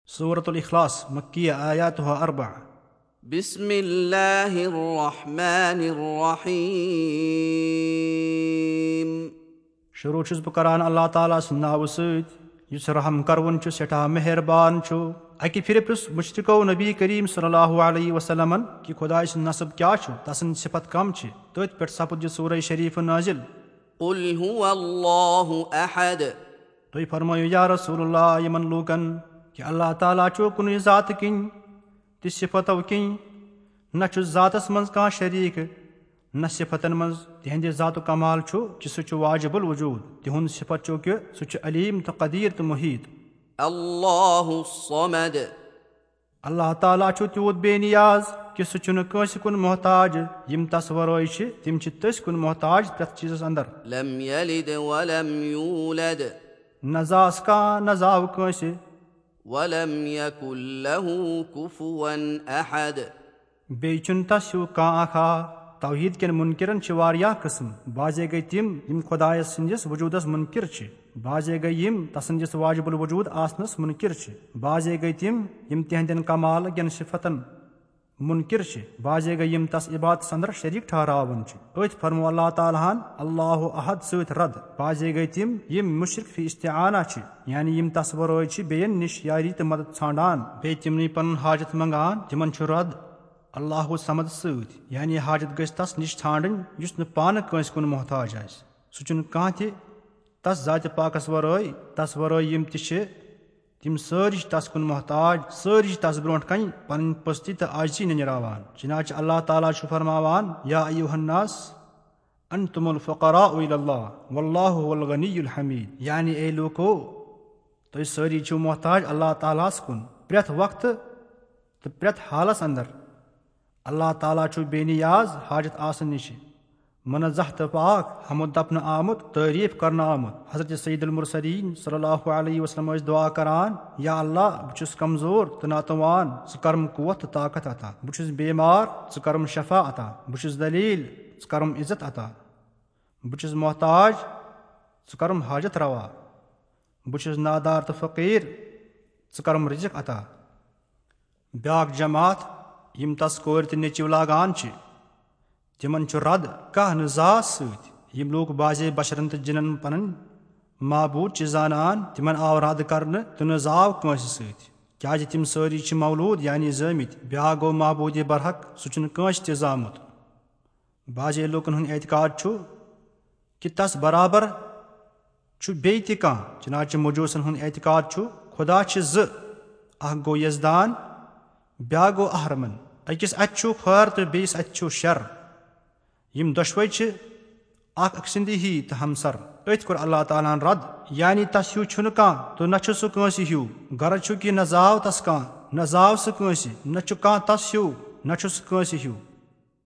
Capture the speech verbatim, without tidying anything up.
سورة الاخلاص، مکیہ، آیاتها اربع۔ بسم الله الرحمن الرحيم۔ شروع چھُس بہٕ کران اللہ تعالیٰ سٕنٛدِ ناوٕ سۭتۍ، یُس رحم کرون چھُ، سٮ۪ٹھاہ مہربان چھُ۔ اکہِ پھِرِ پرُژھ مشرکو نبی کریم صلی اللہ علیہ وسلمن کہِ خدایہِ سُنٛد نصب کیٛاہ چھُ، تسٕنٛز صفت کم چھِ؟ تٔتھۍ پٮ۪ٹھ سپُد یہِ سورہ شریف نازل۔ قل هو الله أحد۔ تُہۍ فرمٲیِو یا رسول اللہ یِمن لوٗکن کہِ اللہ تعالیٰ چھُ کُنُے ذاتہٕ کِنۍ تہِ صفتو کِنۍ، نہ چھُ ذاتس منٛز کانٛہہ شریٖک، نہ صفتن منٛز۔ تِہنٛدِ ذاتُک کمال چھُ کہِ سُہ چھُ واجب الوجود۔ تِہُنٛد صفت چھُ کہِ سُہ چھُ علیم تہٕ قدیر تہٕ محیط۔ الله الصمد۔ اللہ تعالیٰ چھُ تیوٗت بے نیاز کہِ سُہ چھُنہٕ کٲنٛسہِ کُن محتاج۔ یِم تس ورٲے چھِ، تِم چھِ تٔسۍ کُن محتاج پرٛٮ۪تھ چیٖزس اندر۔ لم يلد ولم يولد۔ نہ زاس کانٛہہ، نہ زاو کٲنٛسہِ۔ ولم يكن له كفوا أحد۔ بیٚیہِ چھُنہٕ تس ہیوٗ کانٛہہ اکھ ہا۔ توحید کٮ۪ن منکرن چھِ واریاہ قٕسم۔ بعضے گٔے تِم، یِم خدایس سٕنٛدِس وجودس منکر چھِ۔ بعضے گٔے یِم تسٕنٛدِس واجب الوجود آسنس منکر چھِ۔ بعضے گٔے تِم، یِم تِہنٛدٮ۪ن کمال کٮ۪ن صفتن منکر چھِ۔ بعضے گٔے یِم تس عبادتس اندر شریٖک ٹھہراوان چھِ۔ أتھۍ فرموو اللہ تعالیٰ ہن اللہ احد سۭتۍ رد۔ بعضے گٔے تِم، یِم مشرک فی استعانہ چھِ، یعنی یِم تس ورٲے چھِ بیٚین نِش یاری تہٕ مدد ژھانڈان، بیٚیہِ تِمنٕے پنُن حاجت منگان۔ تِمن چھُ رد اللہ صمد سۭتۍ، یعنی حاجت گژھِ تس نِش ژھانڈٕنۍ یُس نہٕ پانہٕ کٲنٛسہِ کُن محتاج آسہِ۔ سُہ چھُنہٕ کانٛہہ تہِ تس ذاتِ پاکس ورٲے۔ تس ورٲے یِم تہِ چھِ، تِم سٲری چھِ تس کُن محتاج، سٲری چھِ تس برونٛٹھ کنہِ پنٕنۍ پستی تہٕ عاجزی ننیراوان۔ چنانچہ اللہ تعالیٰ چھُ فرماوان، یا ایھا الناس انتم الفقراء الی اللہ واللہ هو الغنی الحمید، یعنی اے لوٗکو، تُہۍ سٲری چھِو محتاج اللہ تعالیٰ ہس کُن پرٛٮ۪تھ وقتہٕ تہٕ پرٛٮ۪تھ حالس اندر۔ اللہ تعالیٰ چھُ بے نیاز حاجت آسنہٕ نِش، منزہ تہٕ پاک، حمد دپنہٕ آمُت، تعریف کرنہٕ آمُت۔ حضرت سید المرسلین صلی اللہ علیہ وسلم ٲسۍ دعا کران، یا اللہ، بہٕ چھُس کمزور تہٕ ناتوان، ژٕ کرم قوت تہٕ طاقت عطا۔ بہٕ چھُس بیمار، ژٕ کرم شفا عطا۔ بہٕ چھُس ذلیل، ژٕ کرم عزت عطا۔ بہٕ چھُس محتاج، ژٕ کرم حاجت روا۔ بہٕ چھُس نادار تہٕ فقیٖر، ژٕ کرم رزق عطا۔ بیاکھ جماعت، یِم تس کورِ تہٕ نیٚچِو لاگان چھِ، تِمن چھُ رد کانٛہہ نہٕ زاس سۭتۍ۔ یِم لوٗکھ بعضے بشرن تہٕ جِنن پنٕنۍ معبوٗد چھِ زانان، تِمن آو رد کرنہٕ تہٕ نہٕ زاو کٲنٛسہِ سۭتۍ، کیازِ تِم سٲری چھِ مولوٗد یعنی زٲمٕتۍ۔ بیاکھ گوٚو معبوٗدِ برحق، سُہ چھُنہٕ کٲنٛسہِ تہِ زامُت۔ بعضے لوٗکن ہُنٛد اعتقاد چھُ کہِ تس برابر چھُ بیٚیہِ تہِ کانٛہہ۔ چنانچہ مجوسن ہُنٛد اعتقاد چھُ خدا چھِ زٕ، اکھ گوٚو یزدان، بیاکھ گوٚو اہرمن۔ أکِس اَتھِ چھُ خٲر تہٕ بیٚیِس اَتھِ چھُ شر۔ یِم دۄشوے چھِ اکھ أکۍ سٕنٛدِ ہی تہٕ ہمسر۔ أتھۍ کوٚر اللہ تعالیٰ ہن رد، یعنی تس ہیوٗ چھُنہٕ کانٛہہ تہٕ نہ چھُ سُہ کٲنٛسہِ ہیوٗ۔ غرض چھُ کہِ نہ زاو تس کانٛہہ، نہ زاو سُہ کٲنٛسہِ، نہ چھُ کانٛہہ تس ہیوٗ، نہ چھُ سُہ کٲنٛسہِ ہیوٗ۔